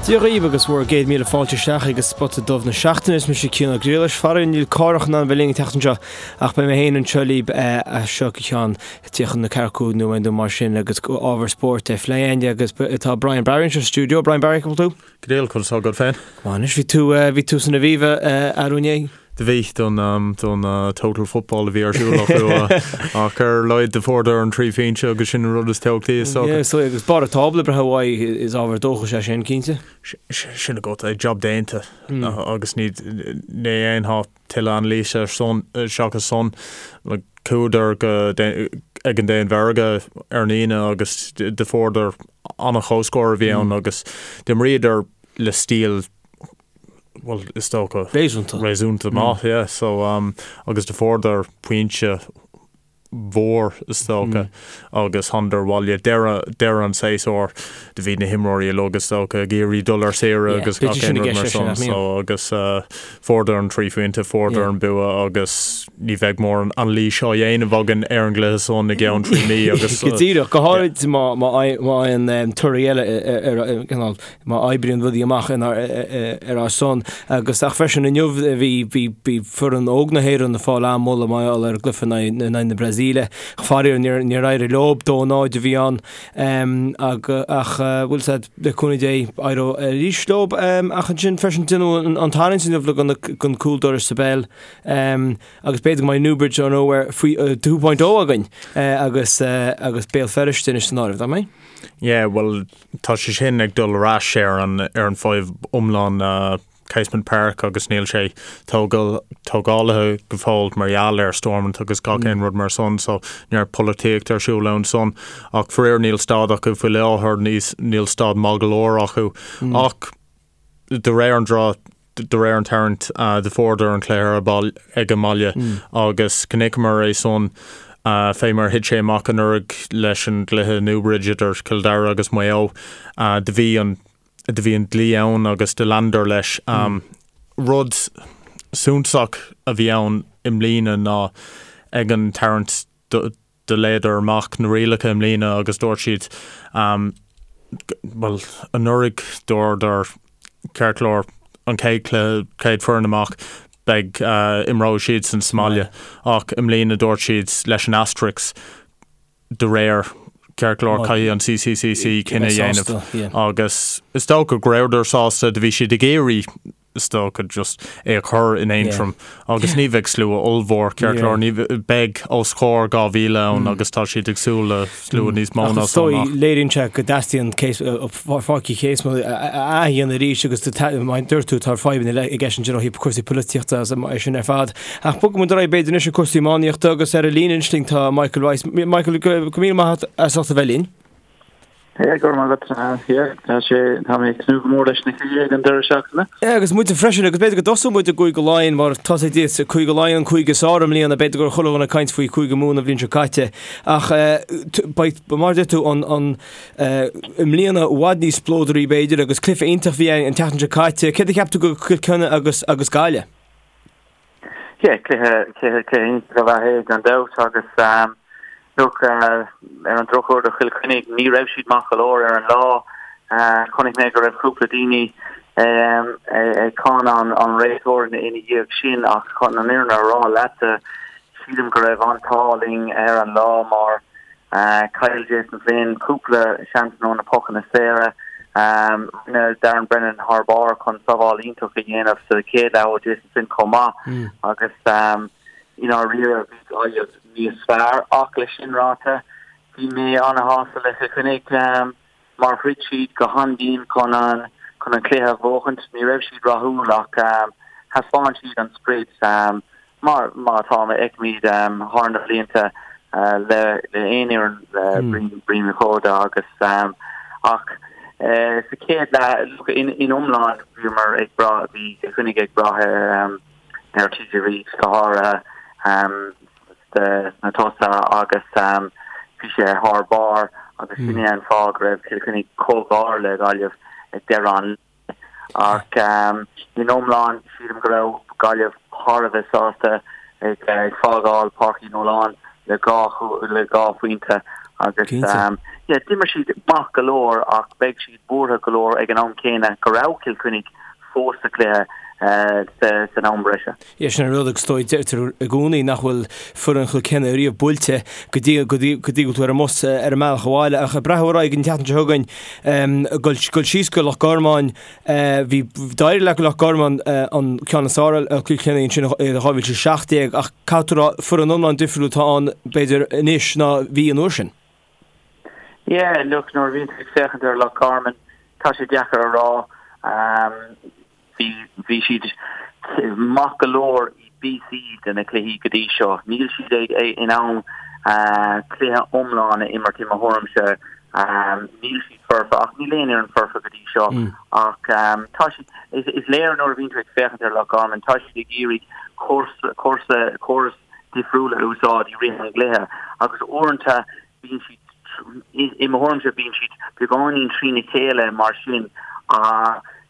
Dia dhaoibh agus bhur gcéad míle fáilte isteach ag Spota Dubh na Seachtaine. Is mise Cian Ó Griallais. Faraor níl Cárthach in ann a bheith linn an tseachtain seo ach beidh mé féin anseo libh as seo go ceann 34 nóiméad nó mar sin agus ábhar spóirt á phlé againn agus tá Brian Barry anseo sa stiúideo. Brian Barry, cá bhfuil tú? Go diail, conas tá agat féin? Go maith anois, bhí tú, bhí tú san Aviva arú inné? Do bhí, don, don Total Football a bhí ar siúl acu ach ar a laghad do fuaireadar an 3 phointe agus sin an rud is tábhachtaí is dócha. Yeah, so agus barr an tábla breithe uaidh is ábhar dóchais é sin, cinnte. Sin agat é, job déanta agus ní, ní dhéanfá tuilleadh anailíse ar san, seachas san. Like, chuadar go, ag an Danmhairg ar an Aoine agus do fuaireadar an-chomhscór a bhí ann agus d'imríodar le stíl bhuel, is dócha Réasúnta. réasúnta maith, yeah. So, um, agus do fuaireadar pointe mhór is dócha agus thánadar abhaile deireadh deireadh an tséasúir do bhí na himreoirí uilig is dócha ag iarraidh dul ar saoire Yeah, agus b'fhéidir gach sin aon i rud gceist mar leis sin, san nach mbíonn? so agus uh, fuaireadar an 3 phointe fuaireadar Yeah. an bua agus ní bheidh mórán anailís á dhéanamh againn ar an gcluiche san i gceann 3 mí agus Go díreach, go háirid má má má fhaigheann um, torthaí eile ar ar ar cineál má oibríonn rudaí amach ar ár son. Agus ach freisin inniu bhí bhí bhí foireann óg na hÉireann ag fáil an-mholadh mar gheall ar an gcluiche in aghaidh in aghaidh na Brasaíle. Faraor níor níor éirigh leo, 2-0 a bhí ann. Ach ach bhfuil 's a'd le cúnamh Dé éireoidh arís leo. Ach ansin freisin déanadh an an tarraingt inniu le don don cúl dorais sa bpeil. Agus b'fhéidir go mbeidh Newbridge or Nowhere faoi 2.0 againn agus agus Béal Feirste anois san áireamh, nach mbeidh? Yeah, bhuel Tá sé sin ag dul ar ais ar an ar an fadhb iomlán Casement Park agus níl sé tógáilte go fóill mar gheall ar Stormont agus gach aon rud mar san so neart polaitíocht ar siúl ann san ach faraor níl staid acu faoi láthair níl staid maith go leor acu ach de réir an draw de réir an tarraingt do fuaireadar an cluiche ar ball ag an mbaile agus chonaiceamar é san fé mar thit sé amach anuraidh leis an gcluiche Newbridge idir Cill Dara agus Maigh Eo. Do bhí an do bhí an dlí ann agus do leanadar leis. Rud suntasach a bhí ann i mbliana ná ag an tarraingt do Do léadar amach na rialacha i mbliana agus dúirt siad, bhuel, anuraidh dúradar, ceart go leor, an chéad chluiche, chéad foireann amach, beidh, imreoidh siadsan sa mbaile. Ach i mbliana dúirt siad leis an asterisk, de réir, ceart go leor, caithfidh an CCCC cinneadh a dhéanamh. Agus is dócha go rabhadar sásta, do bhí siad ag iarraidh, is dócha, just é a chur in Aontroim agus ní bheidh slua ollmhór, ceart go leor, ní beidh os comhair 2,000 ann agus tá siad ag súil le slua níos mó ná san ach. Léiríonn sé go dteastaíonn Páirc Uí Casement a athdhéanamh arís agus mar a dúirt tú tá fadhbanna i gceist ansin ó thaobh cúrsaí polaitíochta agus é sin ar fad. Ach bogfaidh muid ar aghaidh b'fhéidir anois ag cúrsaí iománaíochta agus ar an líne anois linn tá Michael Rice. Michael, go raibh míle maith agat as ucht a bheith linn. Yeah, go raibh maith agat. Yeah, tá sé, tá mé ag tnúth go mór leis na cluichí ag an deireadh seachtaine. Yeah, agus muide freisin, agus b'fhéidir go dtosóidh muid i gCúige Laighean, mar tá sé díot, Cúige Laighean, an cúige is fearr i mbliana, b'fhéidir go raibh chuile dhuine ag caint faoi Chúige Mumhan an bhliain seo caite, ach beidh, mar a deir tú, an, an, i mbliana i bhfad níos spleodraí b'fhéidir, agus cluiche iontach a bhí ann an tseachtain seo caite. Céard a cheap tú de Chill Chainnigh agus, agus Gaillimh? Yeah, cluiche, cluiche, cluiche iontach ab ea é gan dabht agus um, look, uh, ar an drochuair do Chill Chainnigh ní raibh siad maith go leor ar an lá. Uh, chonaic mé go raibh cúpla daoine um, ag cáineadh an, an réiteoir ina, ina dhiaidh sin ach chun an fhírinne a rá leatsa sílim go raibh an t-ádh linn ar an lá mar Chaill Jason Flynn cúpla seansanna ó na pocanna saora. Rinne Darren Brennan thar barr chun sábháil iontach a dhéanamh sa chéad leath ó Jason Flynn chomh maith agus i ndáiríre bhí Gaillimh níos fearr ach leis sin ráite bhí mé ana-shásta le Cill Chainnigh. mar throid siad go han-dian chun an chun an cluiche a bhuachaint. Ní raibh siad rathúil ach thaispeáin siad an sprid mar mar atá a fheicimid thar na blianta le le aon fhoireann le Brian Uí Chóda agus ach sa chéad leath in in iomlán bhíomar ag brath bhí Cill Chainnigh ag brath ar ar TJ Reid go háirithe. sna tosaithe agus bhí sé thar barr agus sin é an fáth go raibh Cill Chainnigh chomh gar le Gaillimh ag deireadh an lae. Ach in iomlán sílim go raibh Gaillimh thar a bheith sásta ag fágáil Páirc Uí Nualláin le 2 le 2 phointe. Agus yeah, d'imir siad maith go leor ach beidh siad buartha go leor ag an am céanna go raibh Cill Chainnigh fós sa chluiche san am breise. Yeah, sin an rud agus is dóigh deirtear i gcónaí nach bhfuil foireann Chill Chainnigh riamh buailte go dtí go dtí go dtí go bhfuil tú ar an mbus ar an mbealach abhaile ach ag breathnú ar aghaidh an tseachtain seo chugainn dul dul síos go Loch Garman bhí d'éirigh le Loch Garman an ceann is fearr ar Chill Chainnigh ansin i 2017 ach caithfidh tú a rá foireann iomlán difriúil atá ann b'fhéidir anois ná bhí an uair sin. Yeah, look, nuair a bhíonn tú ag féachaint ar Loch Garman, tá sé deacair a rá. Bhí, bhí siad maith go leor i bpíosaí de na cluichí go dtí seo. Níl siad ag, in ann cluiche iomlán a imirt i mo thuairimse. Níl siad foirfe, ach níl aon fhoireann foirfe go dtí seo. Ach tá siad, is, is léir nuair a bhíonn tú ag féachaint ar Loch Garman, tá siad ag iarraidh cúrsa, cúrsa, córas difriúil a úsáid i rith an gcluiche agus uaireanta bíonn siad, i mo thuairimse, bíonn siad beagáinín trína chéile mar sin.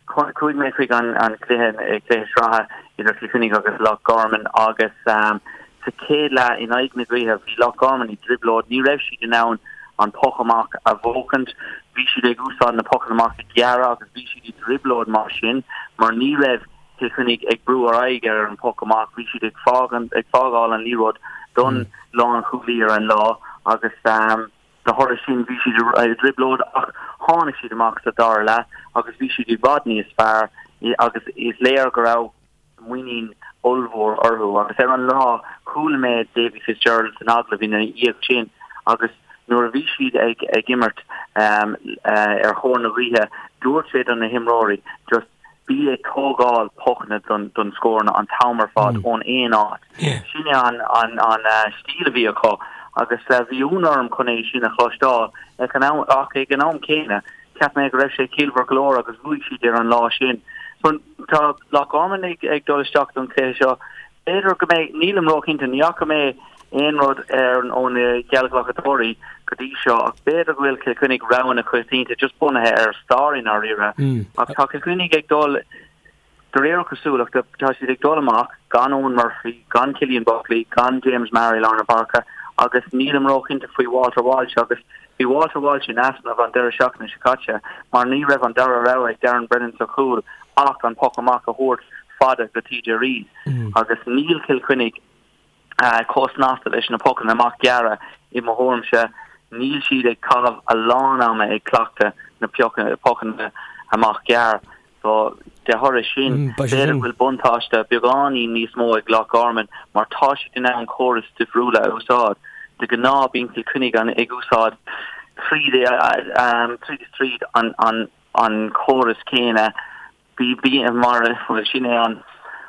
Chuaigh mé chuig an cluiche, cluiche sraithe idir Cill Chainnigh agus Loch Garman agus sa chéad leath in aghaidh na gaoithe bhí Loch Garman i dtrioblóid, ní raibh siad in ann an poc amach a bhuachaint, bhí siad ag úsáid na pocanna amach gearra agus bhí siad i dtrioblóid mar sin mar ní raibh Cill Chainnigh ag brú ar aghaidh ar an poc amach. Bhí siad ag ag fágáil an liathróid don lánchúlaí ar an lá agus de thoradh sin bhí siad i dtrioblóid ach tháinig siad amach sa dara leath agus bhí siad i bhfad níos fearr agus is léir go raibh muinín ollmhór orthu agus ar an lá chuala mé Davy Fitzgerald san agallamh ina dhiaidh sin agus nuair a bhí siad ag ag imirt ar thóir na gaoithe dúirt sé do na himreoirí just Bí ag tógáil pocanna don scóranna an t-am ar fad ón aon áit. Sin é an stíl a bhí acu agus bhí ionadh orm chun é sin a chloisteáil ach ag an am céanna cheap mé go raibh sé ciallmhar go leor agus bhuaigh siad ar an lá sin. So tá Loch Garman ag dul isteach don chluiche seo. B'fhéidir go mbeidh, nílim róchinnte, ní fhaca mé aon rud ar ó na geallghlacadóirí go dtí seo ach b'fhéidir go bhfuil Cill Chainnigh rogha na coitianta just bunaithe ar stair i ndáiríre. Ach tá Cill Chainnigh ag dul, de réir cosúlachta, tá siad ag dul amach gan Eoin Murphy, gan Cillian Buckley, gan James Maher i lár na páirce agus nílim róchinnte faoi Walter Walsh agus bhí Walter Walsh in easnamh an deireadh seachtaine seo caite mar ní raibh an dara rogha ag Darren Brennan sa chúl ach an poc amach a thabhairt fada go TJ Reid agus níl Cill Chainnigh chomh snasta leis na pocanna amach gearra i mo thuairimse. Níl siad ag caitheamh a lán ama ag cleachtadh na pocanna amach gearr. So de thoradh sin, b'fhéidir go bhfuil buntáiste beagáinín níos mó ag Loch Garman mar tá siad in ann córais difriúla a úsáid. De ghnáth bíonn Cill Chainnigh ag úsáid tríd is tríd an córas céanna. Bhí, mar, bhuel, sin é an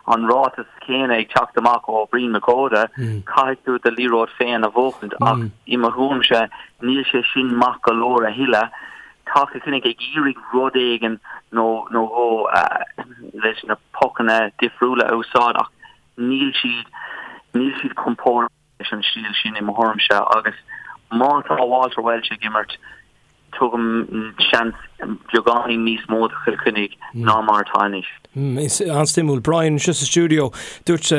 an ráiteas céanna ag teacht amach ó Bhrian Mac Óda, caithfidh tú do liathróid féin a bhuachaint ach i mo thuairimse níl sé sin maith go leor a thuilleadh. Tá Cill Chainnigh ag iarraidh rud éigin nó nó dhó leis na pocanna difriúla a úsáid ach níl siad níl siad compordach leis an stíl sin i mo thuairimse agus má tá Walter Walsh ag imirt, tugaim seans beagáinín níos mó do Chill Chainnigh ná mar atá anois. An-suimiúil. Brian, anseo sa stiúideo, dúirt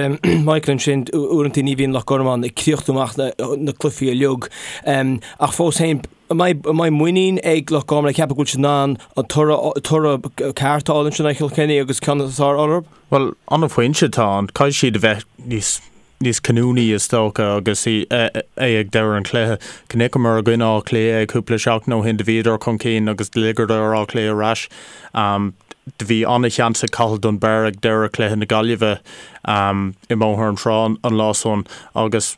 Michael ansin uaireanta ní bhíonn Loch Garman ag críochnú amach na cluichí uilig ach fós féin, an mbeidh muinín ag Loch Garman ag ceapadh go bhfuil siad in ann an toradh ceart a fháil ansin ar Chill Chainnigh agus ceann is fearr orthu? Bhuel, an-phointe atá ann. Caithfidh siad a bheith níos níos cinniúnaí is dócha agus é ag deireadh an chluiche. Chonaiceamar i gcoinne Átha Cliath é cúpla seachtain ó shin, do bhíodar chun cinn agus do ligeadar Áth Cliath ar ais. Do bhí an-sheans ag Cathal Dunbar ag deireadh chluiche na Gaillimhe i mBóthar na Trá an lá san agus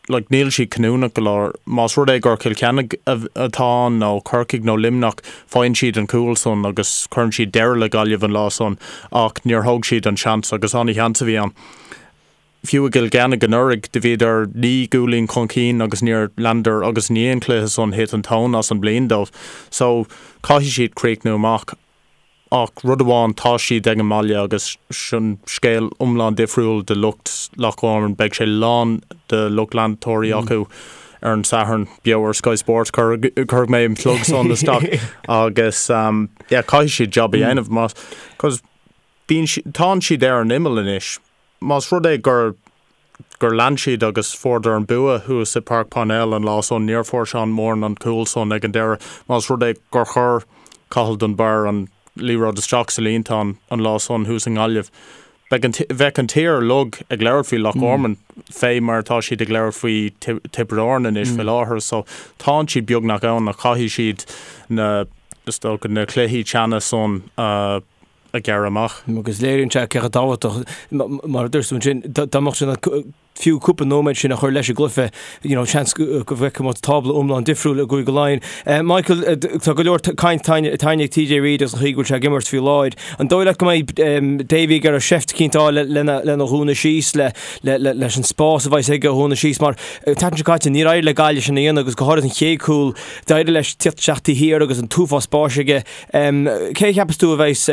like níl siad cinniúnach go leor. Más rud é gur Cill Chainnigh atá ann nó Corcaigh nó Luimneach, faigheann siad an cúl san agus cuireann siad deireadh le Gaillimh an lá san ach níor thóg siad an seans agus an-sheans a bhí ann. Fiú i gCill Chainnigh anuraidh, do bhíodar 9 gcúilín chun cinn agus níor leanadar agus i ndiaidh an chluiche san thit an tóin as an bliain dóibh. So, caithfidh siad críochnú amach. Ach rud amháin, tá siad ag an mbaile agus sin scéal iomlán difriúil do lucht Loch Garman. Beidh sé lán de lucht leantóirí acu ar an Satharn, beo ar Sky Sports, cuirfidh mé an plug san isteach agus yeah, caithfidh siad jab a dhéanamh más, 'cause bíonn, tánn siad ar an imeall anois. Más rud é gur gur lean siad agus fuaireadar an bua thuas i Páirc Parnell an lá san, níor fuair Seán Moran an cúl san ag an deireadh. Más rud é gur chuir Cathal Dunbar an liathróid isteach sa líontán an lá san thuas i nGaillimh, beidh an, bheadh an tír uilig ag labhairt faoi Loch Garman fé mar atá siad ag labhairt faoi Tiobraid Árann anois faoi láthair. So tánn siad beagnach ann ach caithfidh siad na, is dócha, na cluichí teanna san a a ghearradh amach. Agus léiríonn sé cé chomh tábhachtach, mar a dúirt tú ansin, dá mbeadh sé fiú cúpla nóiméad sin a chur leis an gcluiche, you know, seans go bhfeicfeadh muid tábla iomlán difriúil i gCúige Laighean. Michael, tá go leor caint tarraingthe ag TJ Reid agus an chaoi go bhfuil sé ag imirt faoi láthair. An dóigh leat go mbeidh Davy ag iarraidh seift eicínt a fháil lena dhúnadh síos, leis an spás a bheas aige a dhúnadh síos, mar an tseachtain seo caite níor éirigh le Gaillimh sin a dhéanamh agus go háirithe an chéad chúl, d'éirigh leis tíocht isteach taobh thiar agus an t-uafás spáis aige. Cé a cheapas tú a bheas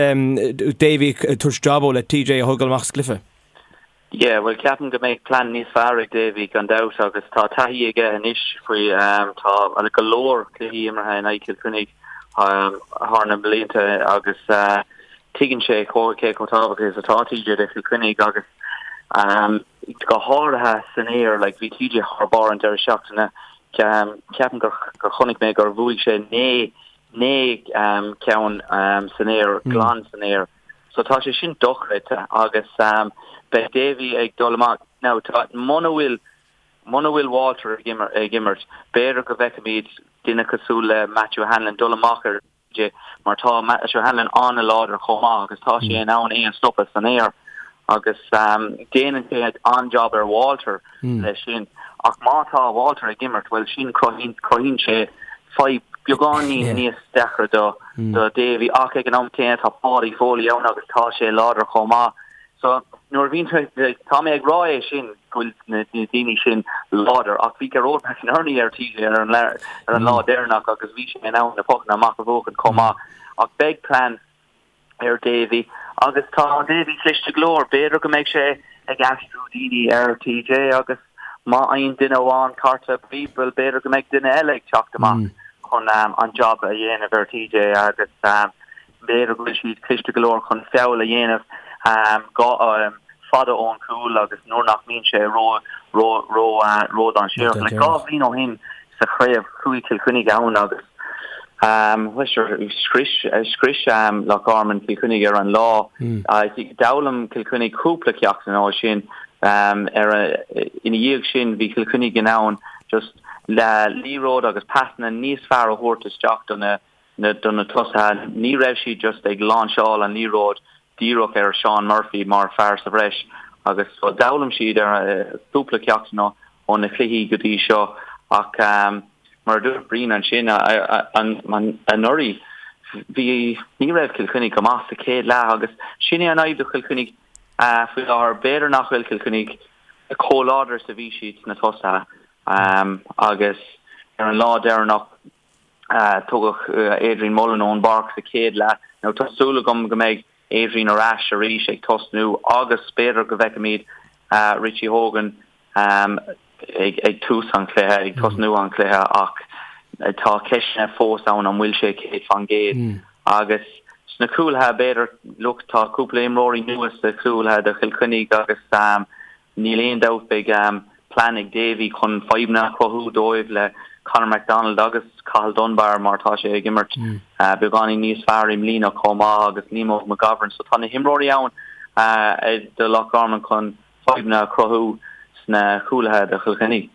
Davy ag tabhairt jab dó le TJ a thógáil amach as an gcluiche? Yeah, bhuel ceapaim go mbeidh plean níos fearr ag Davy gan dabht agus tá taithí aige anois faoi tá go leor cluichí imeartha in aghaidh Chill Chainnigh thar na blianta agus tuigeann sé cé chomh tábhachtach is atá TJ do Chill Chainnigh agus go háirithe san aer like bhí TJ thar barr an deireadh seachtaine ceapaim gur chonaic mé gur bhuaigh sé 9 9 ceann san aer, glan san aer. So tá sé sin dochreidte agus beidh Davy ag dul amach. Now tá, muna bhfuil, muna bhfuil Walter ag ag imirt, b'fhéidir go bhfeicfimid duine cosúil le Matthew Hanlon dul amach ar TJ mar tá Matthew Hanlon an-láidir chomh maith agus tá sé in ann é a stopadh san aer agus déanann sé an-job ar Walter leis sin. Ach má tá Walter ag imirt, bhuel sin cruthaíonn sé fadhb beagáinín níos deacra do do Davy ach ag an am céanna tá Paudie Foley ann agus tá sé láidir chomh maith. So nuair a bhíonn tá mé ag rá é sin go bhfuil na daoine sin láidir ach bhí Gearóid McInerney ar TJ ar an ar an lá deireanach agus bhí sé in ann na pocanna amach a bhuachan chomh maith ach beidh plean ar Davy agus tá Davy cliste go leor. B'fhéidir go mbeidh sé ag aistriú daoine ar TJ agus má fhaigheann duine amháin cárta buí, bhuel b'fhéidir go mbeidh duine eile ag teacht amach chun an job a dhéanamh ar TJ agus b'fhéidir go bhfuil siad cliste go leor chun feall a dhéanamh fada ón chúl agus nuair nach mbíonn sé ró ró ró ródhainséarach. Like 2 bhliain ó shin sa chraobh chuaigh Cill Chainnigh ann agus scrios scrios Loch Garman Cill Chainnigh ar an lá. D'fhoghlaim Cill Chainnigh cúpla ceachtanna ó sin. Ar ina dhiaidh sin bhí Cill Chainnigh in ann just liathróid agus pasanna níos fearr a thabhairt isteach do na do na tosaithe. Ní raibh siad just ag láinseáil an liathróid díreach ar Seán Murphy mar fear sa bhreis agus d'fhoghlaim siad ar cúpla ceachtanna ó na cluichí go dtí seo ach mar a dúirt Brian ansin anuraidh bhí ní raibh Cill Chainnigh go maith sa chéad leath agus sin é an fhadhb do Chill Chainnigh faoi láthair. B'fhéidir nach bhfuil Cill Chainnigh chomh láidir is a bhí siad sna tosaithe agus ar an lá deireanach Tugadh Adrian Mullen ón bpáirc sa chéad leath. Now tá súil agam go mbeidh Adrian ar ais arís ag tosnú agus b'fhéidir go bhfeicfimid Richie Hogan ag tús an chluiche, ag tosnú an chluiche ach tá ceisteanna fós ann an bhfuil sé 100% agus sna cúlaithe b'fhéidir, look tá cúpla imreoirí nua sna cúlaithe do Chill Chainnigh agus Níl aon dabht beidh plean ag Davy chun fadhbanna a chruthú dóibh le Conor McDonald agus Cathal Dunbar mar tá sé ag imirt beagáinín níos fearr i mbliana chomh maith agus Liam Óg McGovern so tá na himreoirí ann do Loch Garman chun fadhbanna a chruthú sna cúlaithe do Chill Chainnigh.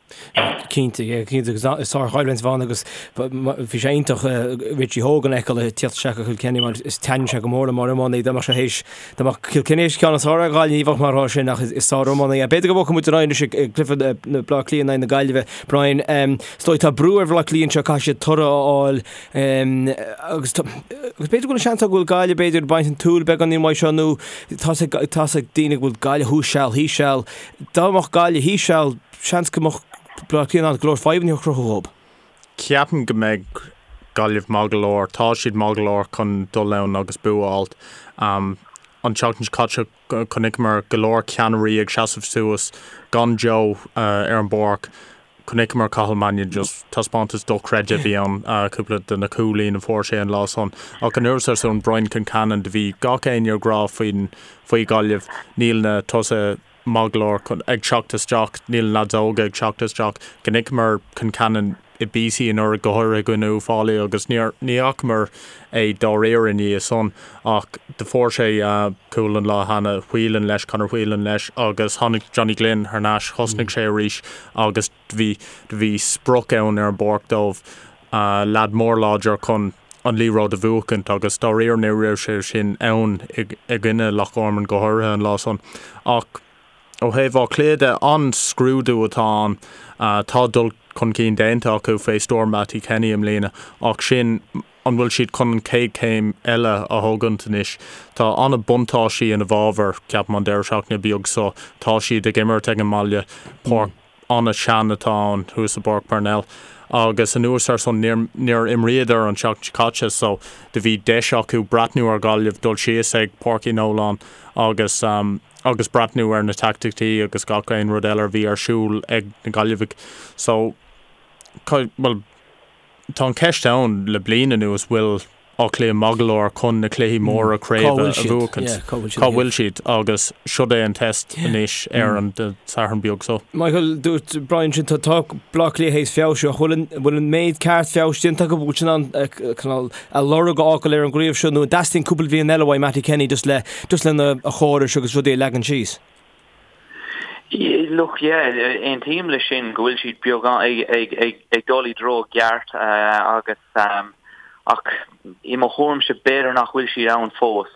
Cinnte, cinnte agus is sárchoimhlint a bheidh ann agus bhí sé iontach Richie Hogan a fheiceáil ag tíocht isteach do Chill Chainnigh mar is taitníonn sé go mór liom mar iománaí dá mbeadh sé théis dá mbeadh Cill Chainnigh théis ceann is fearr a fháil ní bheadh mar atá sin ach is sár-iománaí é. B'fhéidir go mbogfaidh muid ar aghaidh anois ag cluiche na Bleá Cliath in aghaidh na Gaillimhe. Brian, is dóigh tá brú ar Bhleá Cliath anseo caithfidh siad toradh a fháil agus agus b'fhéidir go bhfuil an seans go bhfuil Gaillimh b'fhéidir ag baint an tsúil beagáinín uaidh seo nó tá tá ag daoine go bhfuil Gaillimh thuas seal thíos seal. Dá mbeadh Gaillimh thíos seal, seans go mbeadh Bleá Cliath in ann go leor fadhbanna a chruthú dhób. Ceapaim go mbeidh Gaillimh maith go leor, tá siad maith go leor chun dul ann agus bua a fháilt. An tseachtain seo caite chonaiceamar go leor ceannairí ag seasamh suas gan Joe ar an bpáirc. Chonaiceamar Cathal Mannion just taispeántas dochreidte a bhí ann, cúpla de na cúilín a fuair sé an lá san. Ach anuas ar san Brian Concannon, do bhí gach éinne ag rá faoin faoi Ghaillimh, níl na tosaithe. maith go leor chun, ag teacht isteach, níl na leaids óga ag teacht isteach. Chonaiceamar Concannon i bpíosaí anuraidh, go háirithe i gcoinne Uíbh Fhailí agus níor, ní fhacamar é dáiríre i ndiaidh san ach do fuair sé cúl an lá cheana, Whelan leis, Conor Whelan leis agus tháinig Johnny Glynn thar n-ais, thosnaigh sé arís agus do bhí, do bhí sprioc ann ar an bpáirc dóibh, leaid mór láidir chun an liathróid a bhuachaint agus dáiríre ní raibh sé sin ann i gcoinne Loch Garman go háirithe an lá san. Ach ó thaobh Áth Cliath de, an-scrúdú atá ann. Tá dul chun cinn déanta acu fé stiúir Mattie Kenny i mbliana ach sin an bhfuil siad chun an chéad chéim eile a thógaint anois? Tá an-buntáistí ina bhfabhar, ceapaim, an deireadh seachtaine beag so. Tá siad ag imirt ag an mbaile, páirc an-sean atá ann thuas i bPáirc Parnell agus anuas ar san níor níor imríodar an tseachtain seo caite so do bhí deis acu breathnú ar Ghaillimh dul síos ag Páirc Uí Nualláin agus agus breathnú ar na teaicticí agus gach aon rud eile a bhí ar siúl ag na Gaillimhigh so bhuel Tá an cheist ann le bliain anuas bhfuil Áth Cliath maith go leor chun na cluichí móra craoibhe a bhuachaint. Cá bhfuil siad? Agus siod é an test anois ar an Satharn beag so. Michael, dúirt Brian sin tá Baile Átha Cliath théis feabhsú ach bhfuil an méid ceart feabhais déanta acu bhfuil siad in ann a lorg a fhágáil ar an gcraobh seo nó an dteastaíonn cúpla bliain eile uaidh Mattie Kenny just le just lena a chórais agus rudaí a leagan síos? Look, yeah, aontaím leis sin go bhfuil siad beagán ag, ag, ag, ag dul i dtreo gceart agus ach i mo thuairimse b'fhéidir nach bhfuil siad ann fós.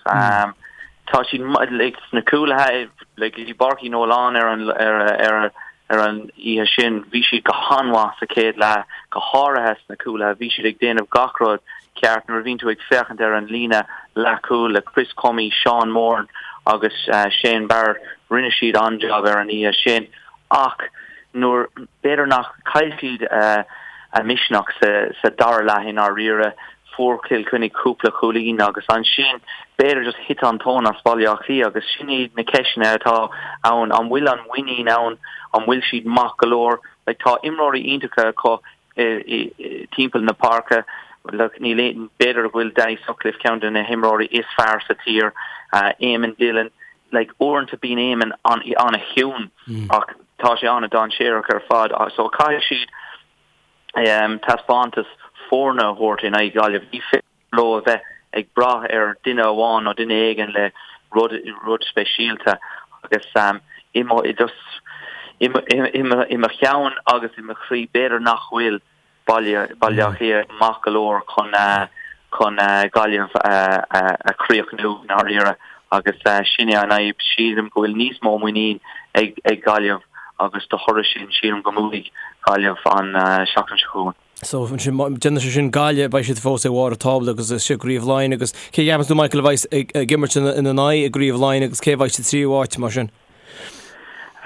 Tá siad like, sna cúlaithe like, i bPáirc Uí Nualláin ar an, ar, ar, ar an oíche sin, bhí siad go han-mhaith sa chéad leath, go háirithe sna cúlaithe, bhí siad ag déanamh gach rud ceart nuair a bhíonn tú ag féachaint ar an líne leathchúil le Chris Crummey, Sean Moran agus Shane Barrett, rinne siad an-jab ar an oíche sin ach nuair, b'fhéidir nach, chaill siad a misneach sa dara leath i ndáiríre, fuair Cill Chainnigh cúpla cúilín agus ansin b'fhéidir just thit an tóin as Baile Átha Cliath agus sin iad na ceisteanna atá ann, an bhfuil an muinín ann, an bhfuil siad maith go leor, like tá imreoirí iontacha acu timpeall na páirce. Níl aon, b'fhéidir go bhfuil Danny Sutcliffe ceann de na himreoirí is fearr sa tír, Eamon Dillon, like uaireanta bíonn Eamon an-chiúin ach tá sé an-dainséarach ar fad so caithfidh siad taispeántas foirne a thabhairt in aghaidh Gaillimh. Ní féidir leo a bheith ag brath ar duine amháin nó duine éigin le rud rud speisialta agus i mo just i mo i mo cheann agus i mo chroí b'fhéidir nach bhfuil Baile Baile Átha Cliath maith go leor chun chun Gaillimh a chríochnú i ndáiríre agus sin é an fhadhb. Sílim go bhfuil níos mó muinín ag ag Gaillimh agus de thoradh sin sílim go mbuafaidh Gaillimh an seachtain seo chugainn. So, ansin, déanann sé sin Gaillimh, beidh siad fós ag bharr an tábla agus is i gCraobh Laighean agus cé a cheapann tú, Michael, a bheidh ag, ag imirt ina, ina n-aghaidh i gCraobh Laighean agus cé a bheidh sa tríú háit mar sin?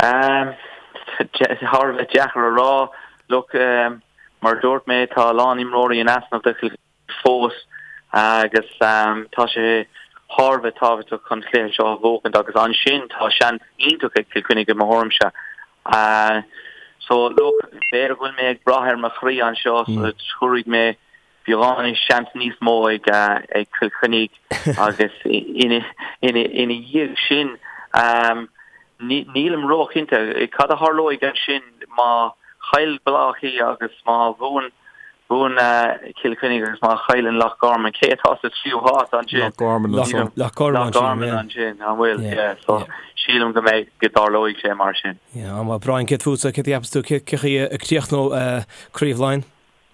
Um, thar a bheith deacair a rá. Look, um, mar a dúirt mé, tá a lán imreoirí in easnamh do Chill fós agus tá sé thar a bheith tábhachtach chun cluiche seo a bhuachaint agus ansin tá seans iontach ag Cill Chainnigh i mo thuairimse. So look, b'fhéidir go bhfuil mé ag brath ar mo chroí anseo so tabharfaidh mé beagán seans níos mó ag ag Cill Chainnigh agus ina ina ina dhiaidh sin nílim róchinnte cad a tharlóidh ansin má chaill Baile Átha Cliath agus má bhuann Buann Cill Chainnigh agus má chailleann Loch Garman, cé atá sa tríú háit ansin? Loch Garman ansin. Loch Garman ansin, an bhfuil? Yeah, so sílim go mbeidh, go dtarlóidh sé mar sin. Yeah, an bhfuil. Brian, céard fútsa, céard a cheapas tú, cé chaoi a críochnóidh Craobh Laighean?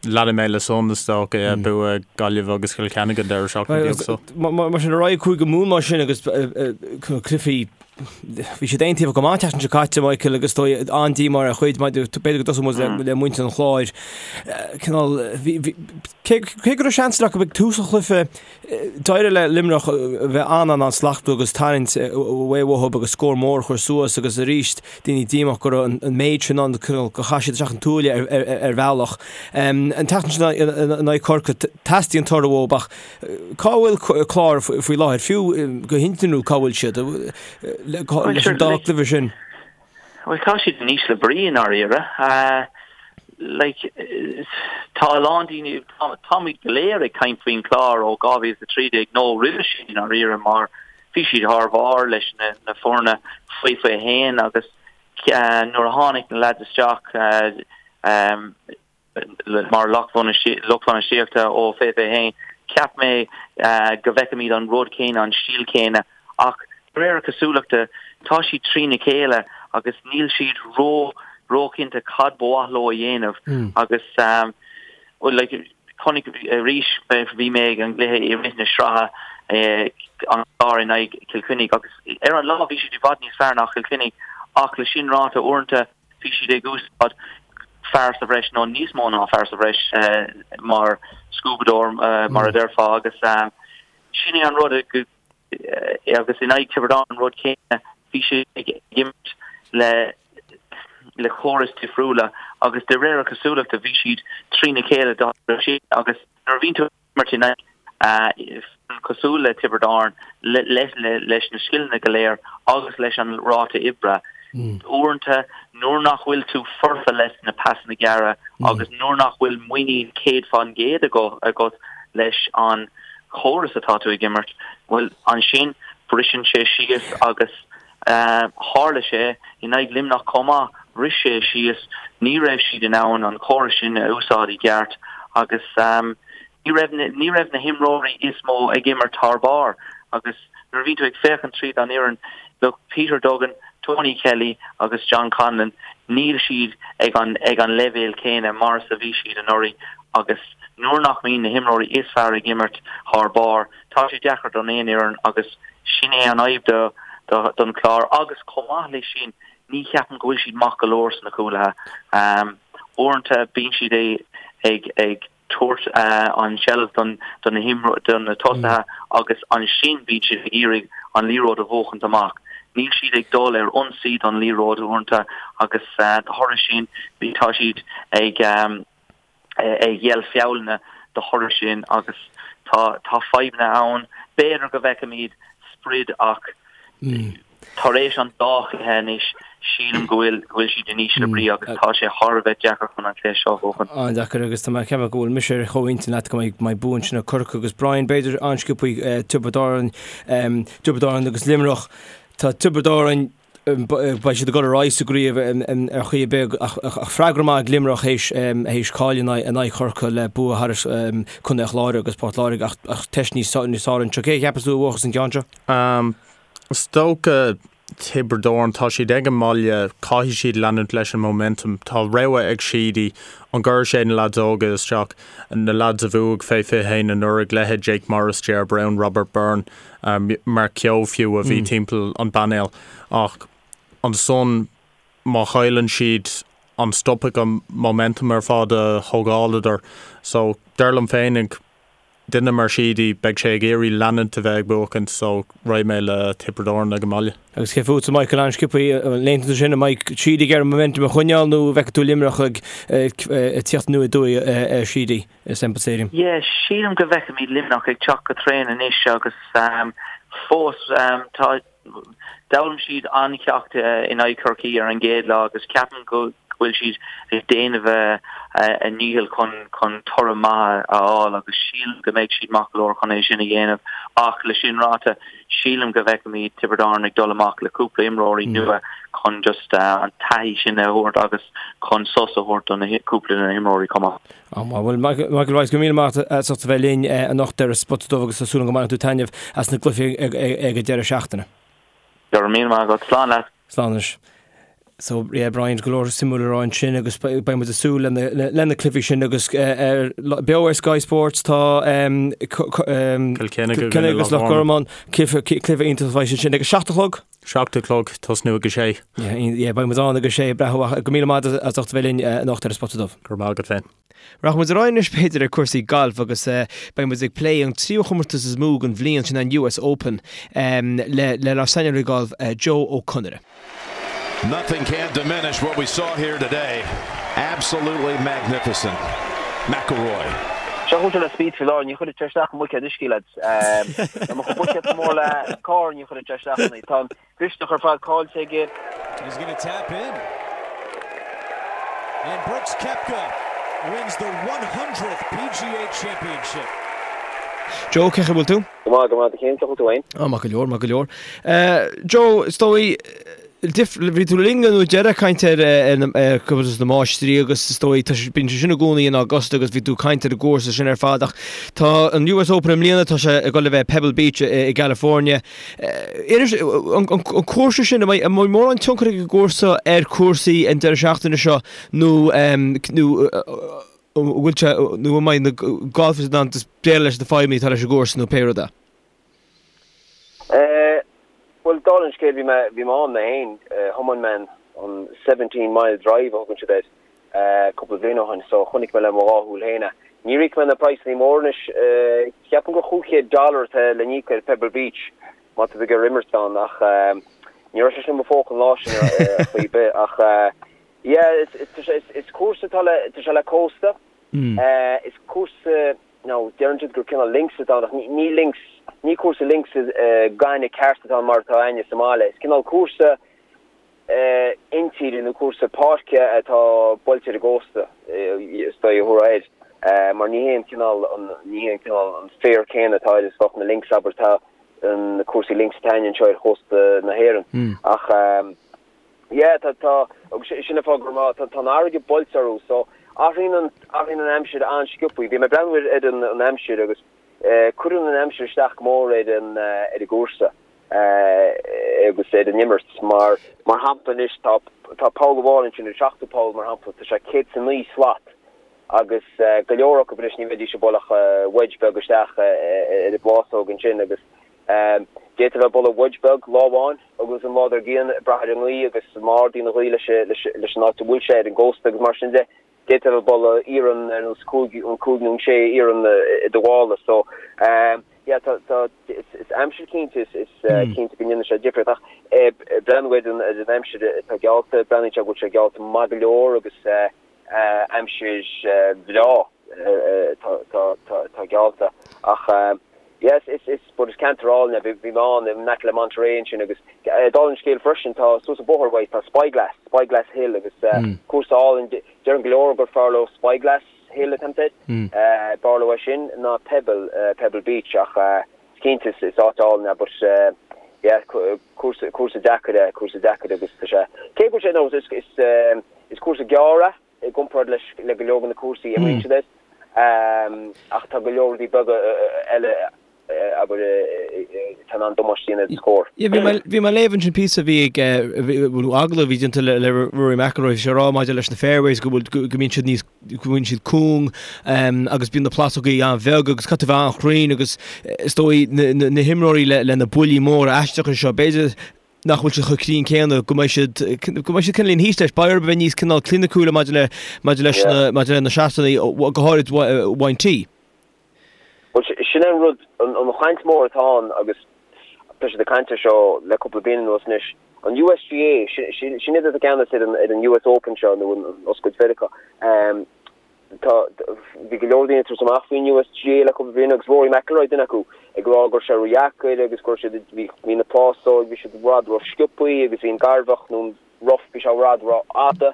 Leanfaidh mé le san is dócha, yeah, bua Gaillimh agus Cill Chainnigh an deireadh seachtaine beag so. Mar sin, ar aghaidh Cúige Mumhan mar sin agus cluichí Bhí siad aontaobhach go maith an tseachtain seo caite, Michael, agus dóigh an-díomá ar chuid, b'fhéidir go dtosóidh muid le muintir an Chláir. Cineál, cé go raibh seans acu ag tús an chluiche, d'éirigh le Luimneach a bheith an-an-an-slachtmhar agus tarraingt away uathu agus scór mór a chur suas agus arís daoine díomách go raibh an méid sin ann, cineál gur chaith siad isteach an tuaille ar bhealach. An tseachtain sin in aghaidh Corcaigh, teastaíonn toradh uathu ach Cá bhfuil Clár faoi láthair, fiú go hintinniúil, cá bhfuil siad leis an dá chluiche sin? Bhuel, tá siad in ísle brí i ndáiríre. Like, tá a lán daoine, táimid go léir ag caint faoin Chlár ó 2013 nó roimhe sin i ndáiríre mar. Bhí siad thar barr leis na foirne faoi 21 agus nuair a tháinig na leaids isteach mar lucht bainistíochta ó fé 21, cheap mé go bhfeicfimid an rud céanna, an stíl céanna ach de réir cosúlachta tá siad trína chéile agus níl siad ró róchinnte cad ba mhaith leo a dhéanamh agus like chonaic arís bhí mé ag an gcluiche i rith na sraithe an Clár in aghaidh Chill Chainnigh agus ar an lá bhí siad i bhfad níos fearr ná Chill Chainnigh ach le sin ráite uaireanta bhí siad ag úsáid fear sa bhreis nó níos mó ná fear sa bhreis mar scuabadóir mar a déarfá agus sin é an rud go agus in aghaidh Tiobraid Árann an rud céanna, bhí siad ag imirt le le córais difriúla agus de réir cosúlachta bhí siad trína chéile dá réir sin agus nuair a bhíonn tú ag imirt in aghaidh foireann cosúil le Tiobraid Árann leis na scileanna go léir agus leis an ráta oibre, uaireanta nuair nach bhfuil tú foirfe leis na pasanna gearra agus nuair nach bhfuil muinín 100% agat leis an chóras atá tú ag imirt, bhuel, ansin briseann sé síos agus tharla sé in aghaidh Luimneach chomh maith, bhris sé síos, ní raibh siad in ann an córas sin a úsáid i gceart agus ní raibh ní raibh na himreoirí is mó ag imirt thar barr agus nuair a bhíonn tú ag féachaint tríd an fhoireann, look, Peter Duggan, Tony Kelly agus John Conlon, níl siad ag an ag an leibhéal céanna mar is a bhí siad anuraidh agus nuair nach mbíonn na himreoirí is fearr ag imirt thar barr, tá sé deacair don aon fhoireann agus sin é an fhadhb do do don Chlár agus chomh maith leis sin ní cheapaim go bhfuil siad maith go leor sna cúlaithe. Uaireanta bíonn siad ag ag tabhairt an tseilbh don do na do na tosaithe agus ansin bíonn siad ag iarraidh an liathróid a bhuachaint amach. Níl siad ag dul ar ionsaí don liathróid uaireanta agus de thoradh sin tá siad ag ag géilleadh feallanna de thoradh sin agus tá tá fadhbanna ann. B'fhéidir go bhfeicfimid sprid ach tar éis an dá chluiche anois sílim go bhfuil go bhfuil siad in ísle brí agus tá sé thar a bheith deacair chun an cluiche seo a bhuachan. An-deacair agus tá mé ag ceapadh go bhfuil mise ar chomhintinn leat go mbeidh mbeidh bua ansin ag Corcaigh agus Brian b'fhéidir an-sciobthaí Tiobraid Árann Tiobraid Árann agus Luimneach. Tá Tiobraid Árann Beidh siad ag dul ar aghaidh sa gcraobh ar chaoi ar bith ach freagra maith ag Luimneach théis cailleadh in aghaidh Chorcaí le bua thar Contae an Chláir agus Port Láirge ach teist níos fearr anseo. Cé a cheapas tú a bhuafas an ceann seo? Is dócha Tiobraid Árann, tá siad ag an mbaile, caithfidh siad leanúint leis an momentum. Tá rogha ag Sheedy, an gcuirfidh sé na leaids óga isteach, na leaids a bhuaigh fé 21 anuraidh, leithéid Jake Morris, Ger Browne, Robert Byrne, Mark Keogh fiú a bhí timpeall an bpainéil ach ansan má chailleann siad an stopfaidh an momentum ar fad a thógáladar so dar liom féinig duine mar Sheedy beidh sé ag iarraidh leanúint a bheith ag buachaint so raghaidh mé le Tiobraid Árann ag an mbaile. Agus cé fútsa Michael an-sciobthaí an aontaíonn tú sin an mbeidh Sheedy ag iarraidh momentum a choinneáil nó an bhfeicfidh tú Luimneach ag tíocht aniar aduaidh ar Sheedy? i Semple Stadium. Yeah, sílim go bhfeicfimid Luimneach ag teacht go tréan anois agus fós tá d'fhoghlaim siad an-cheacht in aghaidh Chorcaí ar an gcéad lá agus ceapaim go bhfuil siad ag déanamh a ndícheall chun chun toradh maith a fháil agus sílim go mbeidh siad maith go leor chun é sin a dhéanamh ach le sin ráite sílim go bhfeicfimid Tiobraid Árann ag dul amach le cúpla imreoirí nua chun just an taithí sin a thabhairt agus chun sos a thabhairt do na cúpla de na himreoirí chomh maith. Á, bhuel, Michael Rice, go raibh míle maith agat as ucht a bheith linn anocht ar an Spota Dubh agus tá súil agam go mbainfidh tú taitneamh as na cluichí ag an deireadh seachtaine. Go raibh míle maith agat. Slán leat. Slán anois. So, yeah, Brian, go leor suimiúil le rá ansin agus beidh muid ag súil le na cluichí sin agus beo ar Sky Sports tá Cill Chainnigh agus Loch Garman, cluiche iontach a bheidh ansin ag a 7 a chlog. 7 a chlog, tosnú ag a sé. Yeah, beidh muid ann ag a sé, breá. Go raibh míle maith agat as ucht a bheith linn anocht ar an Spota Dubh. Go raibh maith agat féin. Rachaidh muid ar aghaidh anois b'fhéidir ar cúrsaí gailf agus beidh muid ag plé an tríú chomórtas is mó den bhliain, sin an US Open, le lenár saineolaí gailf Joe Ó Conaire. Nothing can diminish what we saw here today. Absolutely magnificent. McIlroy. Seo chugat le Spieth faoi láthair, ní chuirfidh sé isteach i mbuicéad uisce, lads. Dá mbeadh an buicéad chomh mór le carr, ní chuirfidh sé isteach ann é. Tá an mhisneach ar fad caillte aige. He's gonna tap in. And Brooks Koepka wins the 100th PGA Championship. Joe, cén chaoi a bhfuil tú? Go maith, go maith, cén chaoi a bhfuil tú fhéin? Á, maith go leor, maith go leor. Joe, is dóigh, bhí tú linn an uair deireadh ag caint ar ar Chomórtas na Máistrí agus is dóigh, tá sé, bíonn sé sin i gcónaí in Augusta agus bhí tú ag caint ar an gcúrsa sin ar fad ach tá an US Open i mbliana, tá sé ag dul a bheith Pebble Beach i gCalifornia. Inis, an cúrsa sin, an mbeidh mórán tionchar ag an gcúrsa ar chúrsaí an deireadh seachtaine seo nó nó an bhfuil sé, nó an mbeidh na golfers in ann just déileáil leis na fadhbanna atá leis an gcúrsa nó pé rud é? Bhuel, dála an scéil, bhí mé, bhí mé ann mé féin, thiomáin mé an 17 mile drive a thugann siad air, cúpla bliain ó shin, so chonaic mé le mo dhá shúil féin é. Níor íoc mé na praghsanna móra anois, ceapaim gur 500 dollar atá le n-íoc ar Pebble Beach má tá tú ag iarraidh imirt ann, ach ní raibh sé sin i mo phóca an lá sin ar chaoi ar bith, ach yeah, is, is, tá sé, is, is cúrsa atá le, tá sé le cósta, is cúrsa, Now, deireann siad gur cineál links atá ann, ach ní links, ní cúrsa links gainimh ceart atá ann mar atá againne sa mbaile. Is cineál cúrsa intíre nó cúrsa páirce atá buailte ar an gcósta, is dóigh a thabharfá air, mar ní hé an cineál, ní hé an cineál an féar céanna atá air is bheadh na links, abair, tá na cúrsaí links atá againne anseo ar chósta na hÉireann. Ach. Yeah, tá, tá, agus sin an fáth go raibh, tá, tá an fharraige buailte orthu, so athraíonn an, athraíonn an aimsir an-sciobthaí. Bhí mé ag breathnú ar, ar an, an aimsir agus eh, cuireann an aimsir isteach go mór ar an, eh, ar an gcúrsa eh, agus ar an imirt mar, mar shampla anois tá, tá poll amháin ansin, an seachtú poll mar shampla, tá sé 109 slat agus eh, go leor acu anois ní bheidís ag bualadh ach eh, wedge beag isteach eh, ar an bplásóg ansin agus D'fhéadfá a bheith ag bualadh wedge beag lá amháin agus an lá dár gcionn ag brath ar an ngaoth agus má ardaíonn an ghaoth leis an áit a bhfuil sé ar an gcósta agus mar sin de, d'fhéadfá a bheith ag bualadh iarann ar nós cúig, an cúig nó an sé iarann i do mhála. So, yeah, tá, tá, is aimsir cinnte, is cinnte go ndéanann sé difríocht ach breathnú ar an ar an aimsir atá geallta, breathnaíonn sé go bhfuil sé geallta maith go leor agus aimsir bhreá atá geallta ach yes is is but is ceantar álainn é bhí mé ann in aice le Monterey ansin agus dála an scéil freisin tá suas an bóthar uaidh tá Spyglass Spyglass Hill agus cúrsa álainn deireann go leor gur fearr leo Spyglass Hill atá air b'fhearr leo é sin ná Pebble Pebble Beach ach is cinnte is is áit álainn é but yeah cúrsa cúrsa deacair é cúrsa deacair agus tá sé cé go bhfuil sé no is is is cúrsa gearr é i gcomparáid leis le go leor de na cúrsaí a imríonn siad air. Ach tá go leor rudaí beaga eile abair atá in ann damáiste a dhéanamh do scór. Yeah, bhí mé bhí mé ag léamh ansin píosa a bhí ag nó agallamh a bhí déanta le le Rory McIlroy, bhí sé ag rá maidir leis na fairways go bhfuil go mbíonn siad níos go mbíonn siad cúng agus bíonn na plásógaí an-bheag agus caithfidh tú a bheith an-chruinn agus is dóigh na na na himreoirí le le na buillí móra aisteacha seo b'fhéidir nach bhfuil siad chomh cruinn céanna, go mbeidh siad, go mbeidh siad cineál thíos leis. Beidh orthu a bheith níos cineál cliniciúla maidir le, maidir leis na, maidir le na seatanna, go háirid ón tee. Bhuel, sin é an rud, an chaint mhór atá ann agus tá siad ag caint air seo le cúpla bliain anuas anois, an USGA, sin iad atá i gceannas ar an US Open seo nó an Oscailt Mheiriceá. Tá, bhí go leor daoine ag tabhairt amach faoin USGA le cúpla bliain agus Rory McIlroy duine acu, ag rá go raibh sé ródheacair agus go raibh siad, bhí, bhí na plásóig, bhí siad i bhfad ró-sciobthaí agus bhí an gairbheach nó an rough, bhí sé i bhfad rófhada.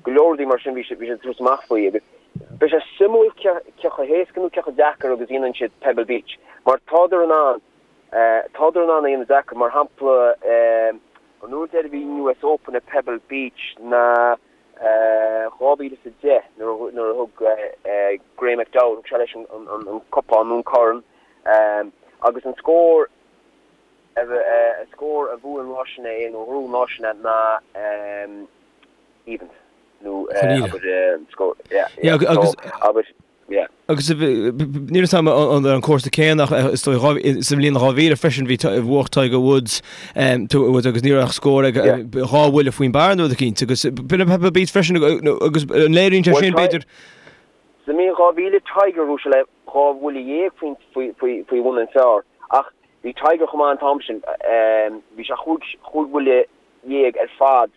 Go leor rudaí mar sin bhí siad, bhí siad ag tabhairt amach faoi agus beidh sé suimiúil cé, cé chomh héasca nó cé chomh deacair agus a dhéanann siad Pebble Beach mar tádar in ann, tádar in ann a dhéanamh deacair mar shampla an uair deiridh a bhí an US Open ag Pebble Beach ná 2010 nuair a thug Graeme McDowell, thug sé leis an cupán nó an corn agus an scór an scór a bhuaigh an lá sin é nó a ghnóthaigh an lá sin é ná evens nó abair scór yeah yeah so abair Yeah. Agus níl a fhios agam an ar an cúrsa céanna ach is dóigh sa bhliain 2000 freisin bhí bhuaigh Tiger Woods Woods agus ní raibh ach scór ag dhá bhuille faoin bpar nó rud eicínt agus b'in Pebble Beach freisin agus an léiríonn sé sin b'fhéidir. Sa mbliain 2000 Tiger bhuaigh sé le dhá bhuille dhéag faoi faoi bhun an phar ach bhí Tiger chomh maith an t-am sin bhí sé chúig chúig bhuille dhéag ar fad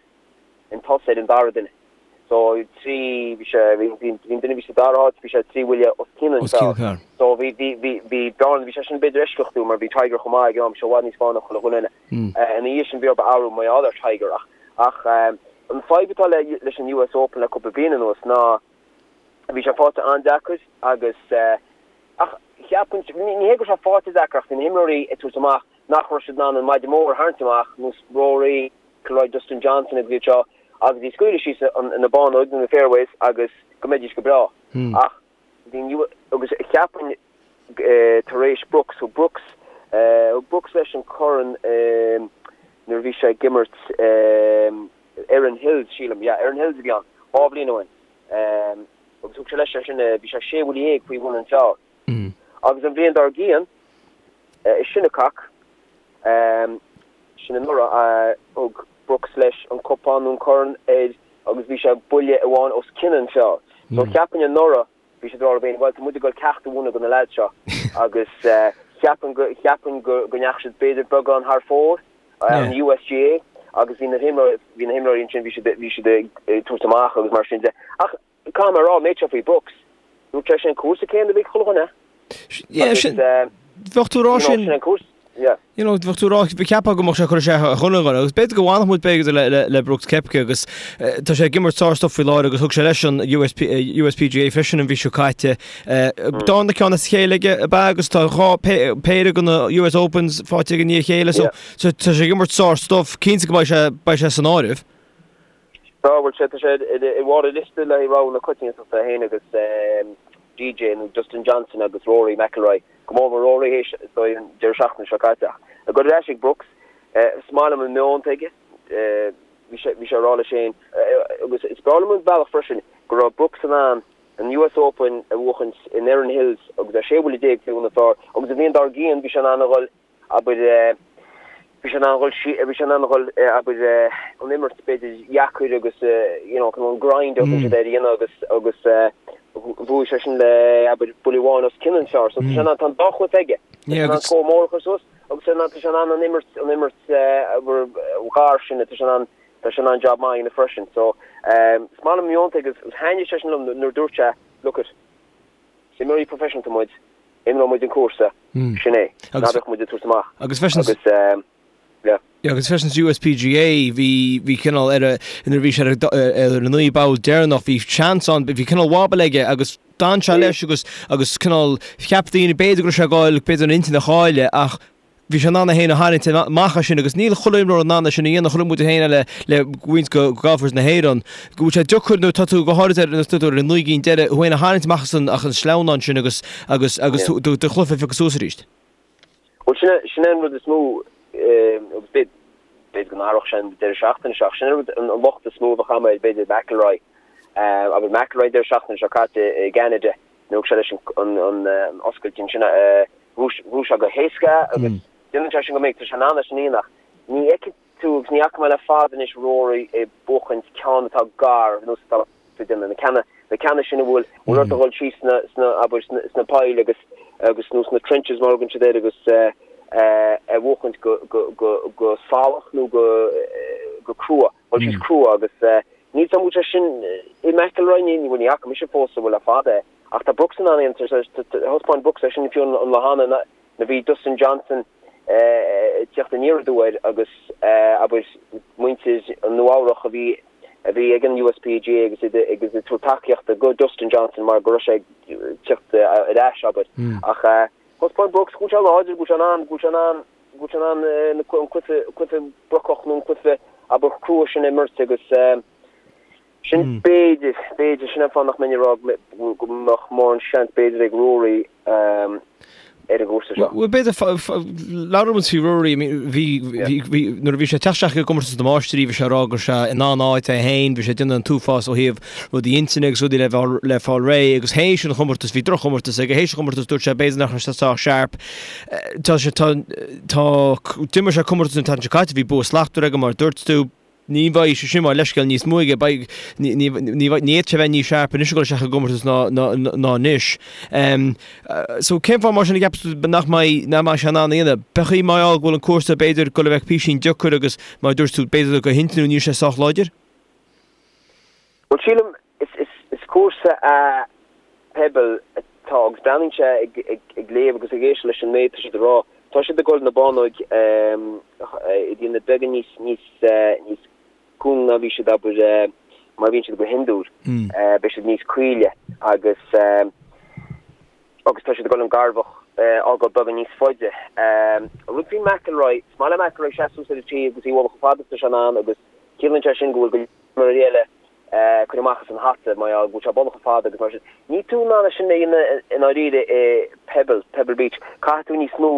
chun tosaigh ar an dara duine. So trí, bhí sé, bhí, bhí, bhí an duine a bhí sa dara háit, bhí sé trí bhuille os cionn an phar. So bhí, bhí, bhí, bhí bearna, bhí sé sin b'fhéidir eisceachtúil mar bhí Tiger chomh maith ag an am, bhí sé i bhfad níos fearr ná chuile dhuine eile. Ina dhiaidh sin bhí orthu athrú mar gheall ar Tiger ach, ach an fadhb atá le, leis an US Open le cúpla bliain anuas ná bhí sé faighte an-deacair agus ach. Cheapfainn, ní hé go raibh sé faighte deacair ach bhí na himreoirí ag tabhairt amach nach raibh siad in ann an maide mór a tharraingt amach, nós Rory, McIlroy, Dustin Johnson agus iad seo, agus iad a scaoileadh síos na bánóig nó na fairways agus go mbeidís go breá. Ach bhí an, agus cheapfainn tar éis Brooks, thug Brooks, thug Brooks leis an corn nuair a bhí sé ag imirt Erin Hills, sílim, yeah, Erin Hills a bhí ann, 2 bhliain ó shin. Agus thug sé leis é sin, bhí sé 16 bhuille faoi bhun an phar. Agus an bhliain dár gcionn, i Shinnecock, sin anuraidh, thug Brooks leis an cupán nó an corn air agus bhí sé buille amháin os cionn an phar. So cheapfainn anuraidh, bhí siad ag rá leo féin, bhuel, tá muid ag dul ceacht a mhúineadh do na leaids seo. Agus cheapfainn go, cheapfainn go ndeachaigh siad b'fhéidir beagán thar fóir, an USGA, agus bhí na himreoirí, bhí na himreoirí ansin, bhí siad, bhí siad ag tabhairt amach agus mar sin de. Ach caithfidh mé a rá, an méid seo faoi Brooks, dúirt sé sin an cúrsa céanna a bhí ag chuile dhuine. Yeah, sin, bheadh tú ag rá sin, sin an cúrsa, yeah. You know, bheadh tú ag rá, cheapfá go mbeadh sé ag cur isteach ar chuile dhuine, agus b'fhéidir go bhfanfadh muid b'fhéidir le, le, le Brooks Koepka agus tá sé ag imirt sár-stuff faoi láthair agus thug sé leis an USP, USPGA freisin an mhí seo caite. Darna ceann as a chéile aige ab ea agus tá 2 péire de na US Opens faighte aige i ndiaidh a chéile so, so tá sé ag imirt sár-stuff, cinnte go mbeidh sé, beidh sé san áireamh. Tá, bhuel sé, tá sé i mbarr an liosta le haghaidh rogha na coitiantachta, é féin agus DJ nó Dustin Johnson agus Rory McIlroy, go mór mór Rory théis is dóigh an deireadh seachtaine seo caite. Ach ag dul ar ais ag Brooks, is maith liom an meon atá aige, bhí sé, bhí sé ag rá leis féin, agus is breá liom an bealach freisin go raibh Brooks in ann an US Open a bhuachaint in Erin Hills agus é 16 bhuille faoi bhun an phar agus an bhliain dár gcionn bhí sé in ann a dhul abair, bhí sé in ann a dhul, bhí sé in ann a dhul, abair, an imirt b'fhéidir dheacair agus you know an grind a thugann siad air a dhéanamh agus, agus bhuaigh sé sin le, abair, buille amháin os cionn an phar. So tá sé in ann, tá an dá chluiche aige. Tá sé in ann scór mór a chur suas agus tá sé in ann an imirt, an imirt, abair, ghar sin, tá sé in ann, tá sé in ann job maith a dhéanamh freisin. So is maith liom an meon atá aige agus thaitnigh sé sin liom nuair a dúirt sé, look it, Is imreoirí proifisiúnta muid, imreoidh muid an cúrsa, sin é, ná bheadh muid ag tabhairt amach. Agus freisin, Agus, yeah. Yeah, agus freisin sa USPGA bhí, bhí cineál ar a, nuair a bhí sé ar a, ar an 9 bpoll deireanach, bhí seans ann, bhí cineál wobble aige agus d'fhan sé leis agus, agus cineál cheap daoine b'fhéidir go raibh sé ag goil, b'fhéidir an intinn a chailleadh ach Bhí sé in ann é féin a tharraingt amach as sin agus níl chuile imreoir in ann é sin a dhéanamh. Chonaic muid é féin le le roinnt de golfers na hÉireann go bhfuil sé deacair nuair atá tú go háirid ar nuair atá tú ar an 9 gcinn deiridh thú féin a tharraingt amach as an as an sleamhnán sin agus agus agus tú do do chluiche a phiocadh suas arís. Bhuel sin é sin é an rud is mó agus b'fhéidir b'fhéidir go n-athródh sé an deireadh seachtaine seo ach sin é an rud an locht is mó a bheadh agam ar b'fhéidir McIlroy abair McIlroy an deireadh seachtaine seo caite i gCeanada nuair a thug sé leis an an an oscailt ansin Bhuaigh sé go héasca agus déanann sé sin go minic, tá sé in ann é sin a dhéanamh ach ní fheicfidh tú agus ní fhaca mé le fada anois Rory ag buachaint ceann atá gar nós atá ag déanamh, na ceanna, na ceanna sin a bhfuil, bhfuil ort a dhul síos sna, sna, abair, sna, sna poill agus, agus nó sna trenches mar a thugann siad air agus a bhuachaint go, go, go, go salach nó go, go crua, dhul síos crua agus níl 's agam an bhfuil sé sin i McIlroy, ní, ní, bhuel ní fhaca mise fós bhuel le fada é. Ach tá Brooks in ann é, thaispeáin Brooks é sin fiú an lá cheana nuair a bhí Dustin Johnson ag teacht aniar aduaidh air agus abair muintir Nua Eabhrach a bhí a bhí ag an USPGA agus iad agus ag tabhairt tacaíochta go Dustin Johnson mar go raibh sé ag teacht ar ais abair. Ach thaispeáin Brooks go bhfuil sé láidir, go bhfuil sé in ann, go bhfuil sé in ann, go bhfuil sé in ann an cluiche, cluiche brocach nó an cluiche abair crua sin a imirt agus Sin b'fhéidir, b'fhéidir, sin an fáth nach mbeinn ag rá go mbeadh mórán seans b'fhéidir ag Rory ar an gcúrsa seo. Bhuel, b'fhéidir, labhraíonn muid faoi Rory, bhí, bhí, bhí, nuair a bhí sé ag teacht isteach i gcomórtas na Máistrí, bhí sé ag rá go raibh sé in an-áit é féin, bhí sé ag déanamh an t-uafás ó thaobh rudaí intinne agus rudaí le fáil, le fáil réidh agus théis an chomórtais, bhí droch-chomórtas aige, théis an chomórtais dúirt sé b'fhéidir nach raibh sé sách sharp. Tá sé, tá, tá, d'imir sé comórtas an tseachtain seo caite, bhí bua slachtmhar aige mar a dúirt tú, Ní bheidh sé sin mar leithscéal níos mó aige, beidh, ní, ní, ní, ní fhéadfadh sé bheith níos sharp anois ag dul isteach i gcomórtas ná, ná, ná anois. So cén fáth mar sin a gceapas tú nach mbeidh, nach mbeidh sé in ann a dhéanamh? B'fhéidir mar gheall go bhfuil an cúrsa b'fhéidir ag dul a bheith písín deacair agus mar a dúirt tú b'fhéidir go hintinniúil níl sé sách láidir? Bhuel sílim is, is, is cúrsa é Pebble atá agus breathnaíonn sé ag, ag, ag léamh agus ag éisteacht leis an méid atá siad ag rá. Tá siad ag dul na bánóig a dhéanamh beagán níos, níos, níos cúng ná bhí siad abair mar a bhíonn siad go hiondúil. Beidh siad níos caoile agus. Agus tá siad ag dul an garbhach a fhágáil beagán níos faide. An rud faoi McIlroy, is maith le McIlroy seasamh suas ar an tee agus í a bhualadh chomh fada is atá sé in ann agus ciallaíonn sé sin go bhfuil go leor imreoirí eile ag cur amach as an hata mar gheall go bhfuil sé ag bualadh chomh fada agus mar sin. Níl tú in ann é sin a dhéanamh i ndáiríre i Pebble, Pebble Beach. Caithfidh tú níos mó,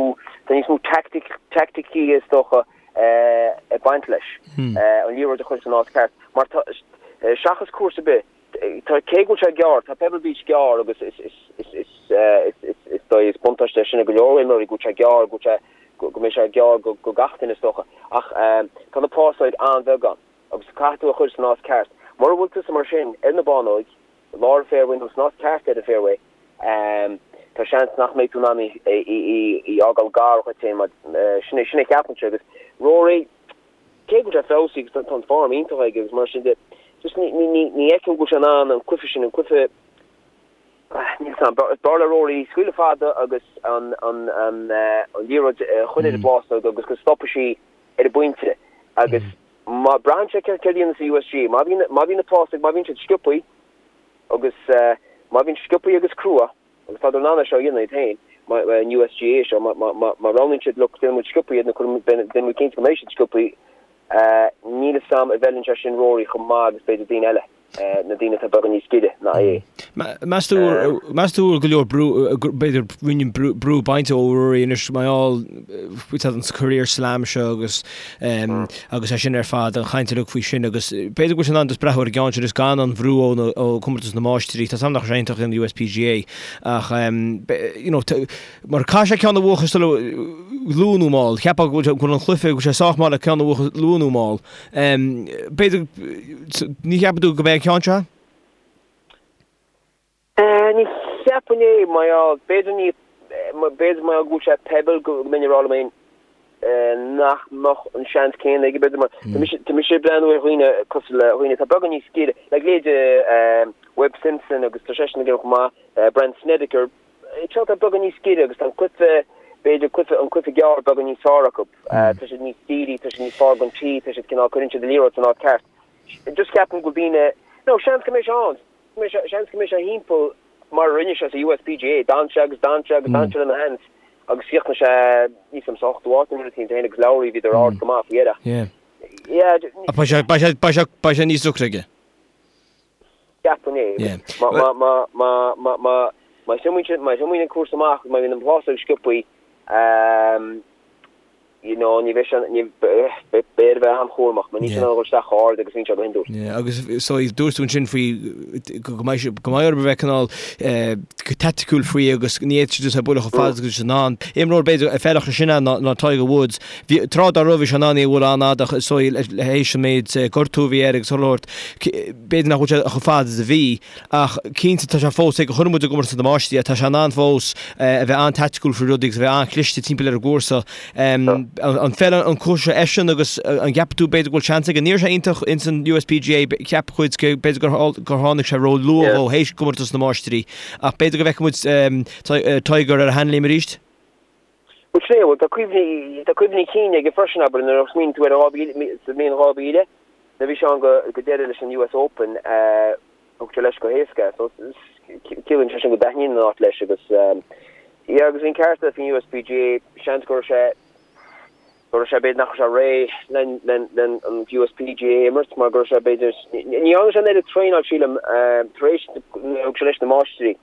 tá níos mó teaicticí is dócha ag baint leis, an liathróid a chur san áit ceart. Mar tá, seachas cúrsa ar bith, tá, cé go bhfuil sé gearr, tá Pebble Beach gearr agus is, is, is, is, is, is dóigh, is buntáiste é sin ag go leor imreoirí go bhfuil sé gearr, go bhfuil sé, go mbeidh sé gearr go, go gach duine is dócha. Ach tá na plásóig an-bheag ann agus caithfidh tú a chur san áit ceart. Mura bhfuil tusa mar sin ar na bánóig, i lár an fairway nó san áit ceart ar an fairway, tá seans nach mbeidh tú in ann í í fhágáil gar dhuit féin mar sin é, sin é ceapaimse agus Rory, cé go bhfuil sé feabhsaithe agus tá an form iontach aige agus mar sin de, just ní, ní, ní, ní fheicim go bhfuil sé in ann an cluiche sin, an cluiche, níl 'fhios a'm, b'fhearr le Rory scaoileadh fada agus an, an, an, an liathróid a chur ar an bplásóg agus go stopfaidh sí ar an bpointe agus má braitheann sé céard a dhéanas an USGA, má bhíonn, má bhíonn na plásóg, má bhíonn siad sciobthaí agus má bhíonn sciobthaí agus crua, Agus tádar in ann é seo a dhéanamh iad féin, an USGA seo, má roghnaíonn siad, look, déanfaidh muid sciobthaí iad nó déanfaidh muid cinnte go mbeidh siad sciobthaí, níl 'fhios a'm an bhfeileann sé sin Rory chomh maith agus b'fhéidir daoine eile, na daoine atá beagán níos giorra ná é. Meas tú, meas tú go leor brú, b'fhéidir roinnt brú bainte ó Rory anois mar gheall faoi an career slam seo agus agus é sin ar fad, an chaint uilig faoi sin agus b'fhéidir go bhfuil sé in ann just breathnú ar an gceann sin agus gan an bhrú ó Chomórtas na Máistrí. Tá 's a'm nach raibh sé iontach in USPGA ach you know mar caithfidh sé ceann a bhuachan sula luath nó mall. Cheapfá go bhfuil an cluiche, go bhfuil sé sách maith le ceann a bhuachan luath nó mall. B'fhéidir, ní cheapann tú go mbeidh an ceann seo? Ní cheapfainn é, mar gheall, b'fhéidir ní, b'fhéidir mar gheall go bhfuil sé Pebble go mbeinn ag rá liom féin nach mbeadh an seans céanna aige, b'fhéidir mar tá mise, tá mise ag breathnú ar dhaoine cosúil le dhaoine atá beagán níos giorra, like leithéide Webb Simpson agus tá seisean ag déanamh chomh maith, Brandt Snedeker, seo atá beagán níos giorra agus tá an cluiche, b'fhéidir cluiche, an cluiche gearr beagán níos fearr acu, tá siad níos dírí, tá siad níos fearr don tee, tá siad cineál, cuireann siad an liathróid san áit ceart. Just ceapaim go bhfuil daoine, no, seans go mbeidh sé ann. Seans go mbeidh sé thimpeall mar a rinne sé sa USPGA, d'fhan sé agus d'fhan sé agus d'fhan sé lena sheans agus chríochnaigh sé níl 's a'm sa ochtú áit nó rud éicint féin agus Lowry bhíodar ard go maith faoi dheireadh. Yeah. Yeah. Beidh sé, beidh sé, beidh sé, beidh sé níos deacra aige. Ceapaim é. Yeah. Má, má, má, má, má, má, má thiomáineann, má thiomáineann an cúrsa amach, má bhíonn an plásóg sciobthaí, ehm, you know, ní bheidh sé, ní, beidh air a bheith an-chúramach, mar níl sé in ann a dhul isteach chomh hard agus a bhíonn sé go hiondúil. Yeah, agus so dúirt tú ansin faoi go mbeidh sé, go mbeidh orthu a bheith cineál go taiticiúil faoi agus ní fhéadfaidh siad just é a bhualadh chomh fada agus in ann. Imreoir b'fhéidir a feilfeadh sé sin ná ná Tiger Woods. Bhí, tráth dá raibh bhí sé in ann í a bhualadh an-fhada ach so le théis an méid gortú a bhí air agus chuile shórt, b'fhéidir nach bhfuil sé chomh fada is a bhí. Ach cinnte, tá sé fós, ag chonaic muid i gcomórtas na Máistrí é, tá sé in ann fós a bheith an-taiticiúil faoi rudaí agus a bheith an-chliste timpeall ar an gcúrsa. An bhfeileann an cúrsa seo eisean agus an gceapann tú b'fhéidir go bhfuil seans aige? Ní raibh sé iontach ins an USPGA, cheap cuid b'fhéidir gur tháinig sé ró-luath dhó théis gcomórtas na Máistrí ach b'fhéidir go bhfeicfidh muid Tiger ar a sheanléim arís? Bhuel, sin é, bhuel, tá cuimhní, tá cuimhní cinn aige freisin, abair, nuair a smaoiníonn tú ar an 2000, sa mbliain 2000, nuair a bhí sé ann go, go deireadh leis an US Open, thug sé leis go héasca é, so ciallaíonn sé sin go dtaitníonn an áit leis agus, yeah, agus bhí an ceart aige faoin USPGA, seans go raibh sé, go raibh sé, b'fhéidir nach raibh sé réidh len, len, len an USPGA a imirt mar go raibh sé, b'fhéidir, ní dhearna sé an oiread traenáil, sílim, tar éis, nuair a thug sé leis na Máistrí.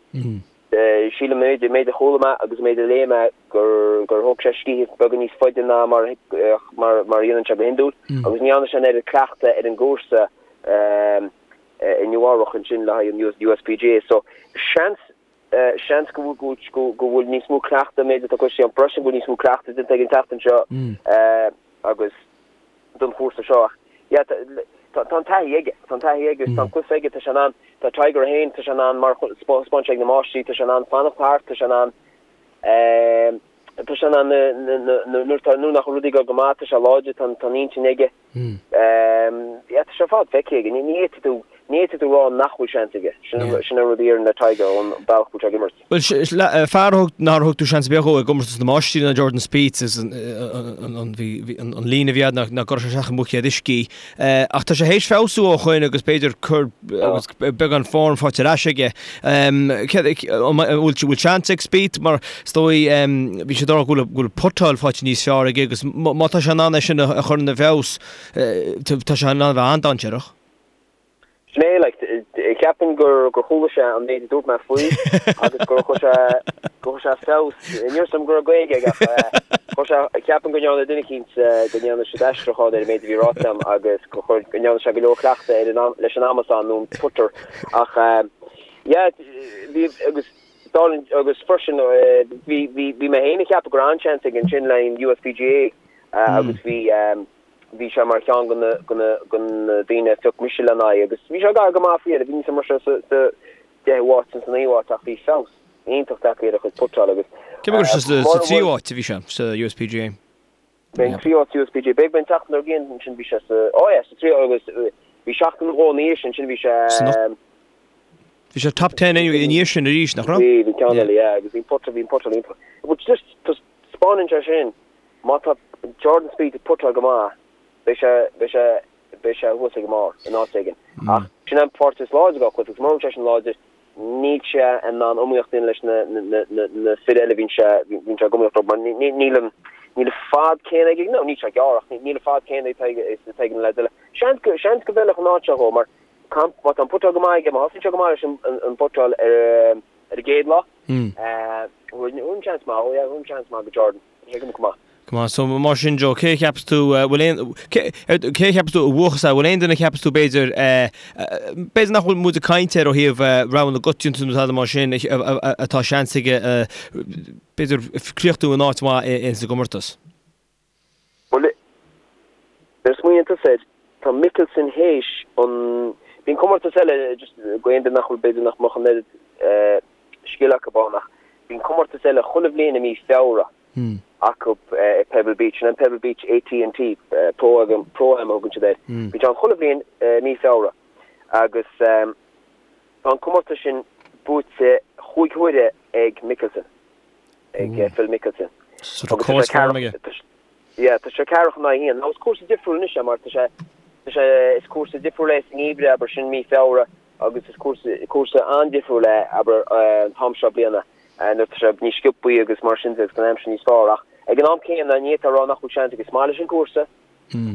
Sílim, an méid a chuala mé agus an méid a léigh mé, gur thóg sé scíth beagán níos faide ná mar a dhéanann sé go hiondúil agus ní dhearna sé an oiread cleachtaidh ar an gcúrsa i Nua-Eabhrac ansin le haghaidh an USPGA. So, seans, seans go bhfuil níos mó cleachtaidh, an méid atá cloiste agam freisin, go bhfuil níos mó cleachtaidh déanta aige an tseachtain seo agus don chúrsa seo ach yeah tá tá an taithí aige, tá an taithí aige agus tá an cluiche aige, tá sé in ann, tá Tiger é féin, tá sé in ann mar thaispeáin sé ag na Máistrí, tá sé in ann fanacht thart, tá sé in ann ehm tá sé in ann nuair tá nuair nach bhfuil rudaí ag dul go maith, tá sé láidir, tá an intinn aige. Ehm yeah tá sé ar fad feicthe aige, ní ní fhéadfaidh tú. Ní fhéadfaidh tú rá nach bhfuil seans aige. Sin an rud a déarfainn le Tiger ón bealach go bhfuil sé ag imirt. Bhuel, fear a thug, nár thug tú seans ar bith dhó i gcomórtas na Máistrí ná Jordan Spieth is an líne a bhí agat nach gcuirfeadh sé isteach i mbuicéad uisce. Ach tá sé théis feabhsú ó shoin agus b'fhéidir cur agus beagán form faighte ar ais aige. An bhfuil seans ag Spieth mar is dóigh bhí sé ag rá go bhfuil putáil faighte níos fearr aige agus má tá sé in ann é sin a chur ina bhfeabhas tá sé in ann a bheith an-dainséarach. Sin é, like, ceapaim gur gur chuala sé an méid a dúirt mé faoi agus gur chuir sé gur chuir sé feabhas, ní raibh a fhios agam go raibh Gaeilge aige ach chuir sé, ceapaim go ndearna duine eicínt go ndearna siad aistriúchán ar an méid a bhí ráite agam agus gur chuir, go ndearna sé go leor cleachtaidh ar an leis an amasán nó an putter ach yeah, bhí agus dála agus freisin bhí bhí bhí mé féin ag ceapadh go raibh an-seans aige ansin le an USPGA agus bhí Bhí sé mar cheann de na daoine a phioc mise lena aghaidh agus bhí sé gar go maith faoi dheireadh. Bhí níl a fhios agam an raibh sé sa deichiú háit nó sa naoú háit ach bhí feabhas iontach tagtha ar a chuid putáil agus Cé go raibh sé sa tríú háit a bhí sé sa USPGA? Bhí an tríú háit sa USPGA. B'fhéidir b'in an tseachtain dár gcionn ansin bhí sé sa, oh yeah, sa tríú agus bhí seachtain nó dhó ina dhiaidh sin, ansin bhí sé Bhí sé top ten anyway ina dhiaidh sin arís, nach raibh? Bhí, bhí ceann eile, yeah, agus bhí an putter, bhí an putter iontach. But just, taispeánann sé sin Má tá Jordan Spieth ag putáil go maith, beidh sé, beidh sé, beidh sé thuas ag an mbarr in áit éigin. Ach sin an pháirt is láidre dá chuid, agus mura bhfuil seisean láidir, níl sé in ann iomaíocht a dhéanamh leis na, na, na, na fir eile a bhíonn sé, bhíonn sé ag iomaíocht leo, mar ní, ní, níl an, níl an fad céanna aige, no, níl sé gearr ach níl an fad céanna atá ag, atá ag na leaids eile. Seans go, seans go bhfeilfeadh an áit seo dhó, mar má tá an putáil go maith aige, má thosaíonn sé go maith leis an, an, an bputáil ar, ar an gcéad lá, thabharfainn seans maith dhó, yeah, thabharfainn seans maith go Jordan. Go maith. Go maith. So mar sin Joe, cé a cheapas tú, bhfuil aon, cé, cé a cheapas tú a bhuafas é, bhfuil aon duine a cheapas tú b'fhéidir, b'fhéidir nach bhfuil muid ag caint air ó thaobh rogha na gcoitianta nó tada mar sin, atá seans aige b'fhéidir críochnú in áit mhaith ins an gcomórtas? Bhuel, nuair a smaoiníonn tusa air, tá Mickelson théis an, bíonn comórtas eile, just go aon duine nach bhfuil, b'fhéidir nach mbeadh an oiread scil acu ann ach bíonn comórtas eile chuile bhliain i mí Feabhra acu i Pebble Beach, sin an Pebble Beach AT&T Pro Am a thugann siad air. Bíonn sé ann chuile bhliain i mí Feabhra agus tá an comórtas sin buaite chúig huaire ag Mickelson, ag Phil Mickelson. So tá córas form aige. Yeah, tá sé ceathracha in aghaidh a haon. Now is cúrsa difriúil anois é mar tá sé, tá sé, is cúrsa difriúil é sa ngeimhreadh, abair, sin mí Feabhra agus is cúrsa, cúrsa an-difriúil é, abair, an t-am seo bliana nuair tá sé níos sciobthaí agus mar sin de agus an aimsir níos fearr. Ach ag an am céanna ní fhéadfá a rá nach bhfuil seans aige. Is maith leis an gcúrsa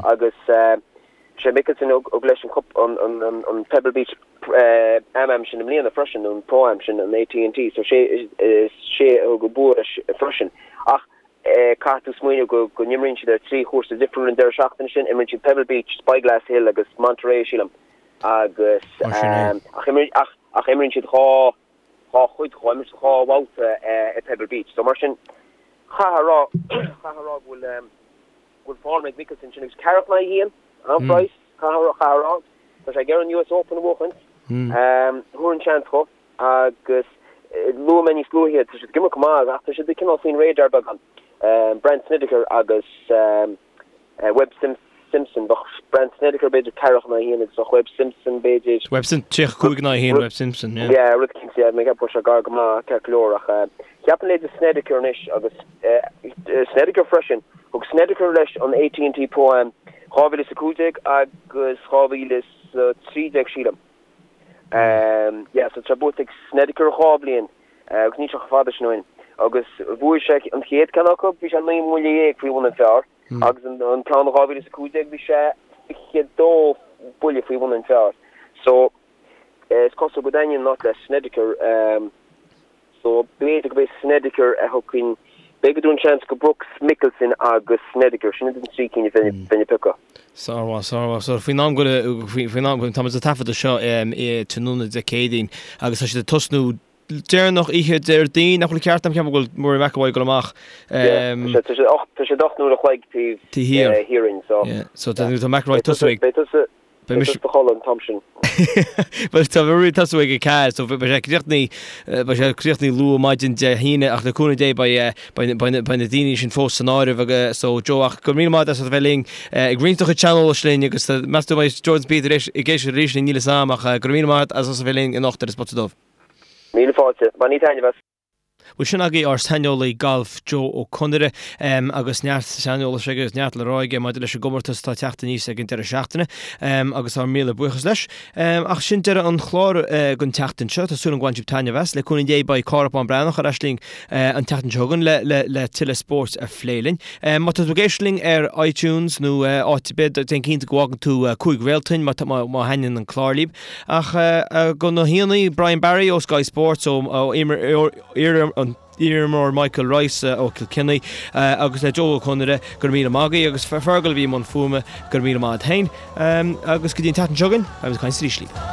agus sé Mickelson a thug leis an cup, an, an, an, an Pebble Beach Am-Am sin i mbliana freisin, an Pro-Am sin, an AT&T, so sé, is sé a thug an bua leis freisin. Ach Caithfidh tú smaoineamh go go n-imríonn siad ar thrí chúrsa difriúil an deireadh seachtaine sin. Imríonn siad Pebble Beach, Spyglass Hill agus Monterey, sílim. Agus ach ach ach imríonn siad dhá dhá chuid dhá imríonn siad dhá bhabhta i Pebble Beach. So mar sin chaithfeá a rá chaithfeá a rá go bhfuil go bhfuil form ag Mickelson sin agus ceathracha in aghaidh a haon, an-phraghas, caithfeá a rá. Tá sé ag iarraidh an US Open a bhuachaint. Thabharfainn seans dhó. Agus luaigh mé níos luaithe, tá siad ag imirt go maith ach tá siad cineál faoin radar beagán. Brandt Snedeker agus Webb Simpson, bheadh Brandt Snedeker b'fhéidir ceathracha in aghaidh a haon agus bheadh Webb Simpson b'fhéidir. Webb Simpson, 35 in aghaidh a haon Webb Simpson, yeah. Yeah, rud eicínt, yeah, mé ag ceapadh go bhfuil sé gar go maith, ceart go leor ach cheapfainn leithéid Snedeker anois agus Snedeker freisin, thug Snedeker leis an AT&T Pro-Am 2015 agus 2013 sílim. Yeah, so tá buaite ag Snedeker dhá bhliain agus níl sé chomh fada sin ó shin. Agus bhuaigh sé an chéad ceann acu, bhí sé 19 mbuille faoi bhun an phar agus an ceann in 2015 bhí sé 22 buille faoi bhun an phar. So is cosúil go dtaitníonn an áit le Snedeker. So, b'fhéidir gurb é Snedeker a thiocfainn, b'fhéidir go dtabharfainn seans go Brooks, Mickelson agus Snedeker, sin iad an trí cinn a bheinn ag piocadh. Sármhaith, sármhaith. So, faoin am go, faoin am, tá muid ag taifeadadh seo i tráthnóna Dé Céadaoin agus tá siad ag tosnú deireanach oíche Déardaoin, nach bhfuil ceart agam, ceapaim go bhfuil Rory McIlroy ag dul amach. Yeah, tá sé, tá sé 8 uair a chloig taobh thiar dínn, so. Yeah, so tá McIlroy ag tosú ag. Beidh tusa. Beidh mise sa chodladh an t-am sin. Bhuel, tá mé ag tosú ag 4, so beidh sé críochnaithe, beidh sé críochnaithe luath maidin Dé hAoine ach le cúnamh Dé beidh, beidh, beidh, beidh na daoine sin fós san áireamh agus so Joe ach go raibh míle maith agat as a bheith linn ag roinnt do chuid saineolais linn agus meas tú an mbeidh Jordan Spieth ar ais ag éisteacht arís linn níl 'fhios a'm ach go raibh míle maith agat as a bheith linn anocht ar An Spota Dubh. Míle fáilte. Bainigí taitneamh as. Bhuel, sin agaibh ár saineolaí gailf Joe Ó Conaire agus neart saineolais aige agus neart le rá aige maidir leis an gcomórtas atá ag teacht aníos ag an deireadh seachtaine agus ár míle buíochas leis. Ach sin deireadh an chláir don tseachtain seo. Tá súil agam go bhain sibh taitneamh as. Le cúnamh Dé beidh Cárthach Bán Breathnach ar ais linn an tseachtain seo chugainn le le le tuilleadh spóirt a phlé linn. Má tá tú ag éisteacht linn ar iTunes nó áit ar bith, déan cinnte go bhfágann tú 5 réalta dúinn má má thaitníonn an clár libh. Ach do na haíonna, Brian Barry ó Sky Sports, ó iarimreoir Michael Rice ó Chill Chainnigh agus le Joe Ó Conaire, go raibh míle maith agaibh agus Fergal a bhí i mbun fuaime, go raibh míle maith agat féin. Agus go dtí an tseachtain seo chugainn, beimid ag caint arís libh.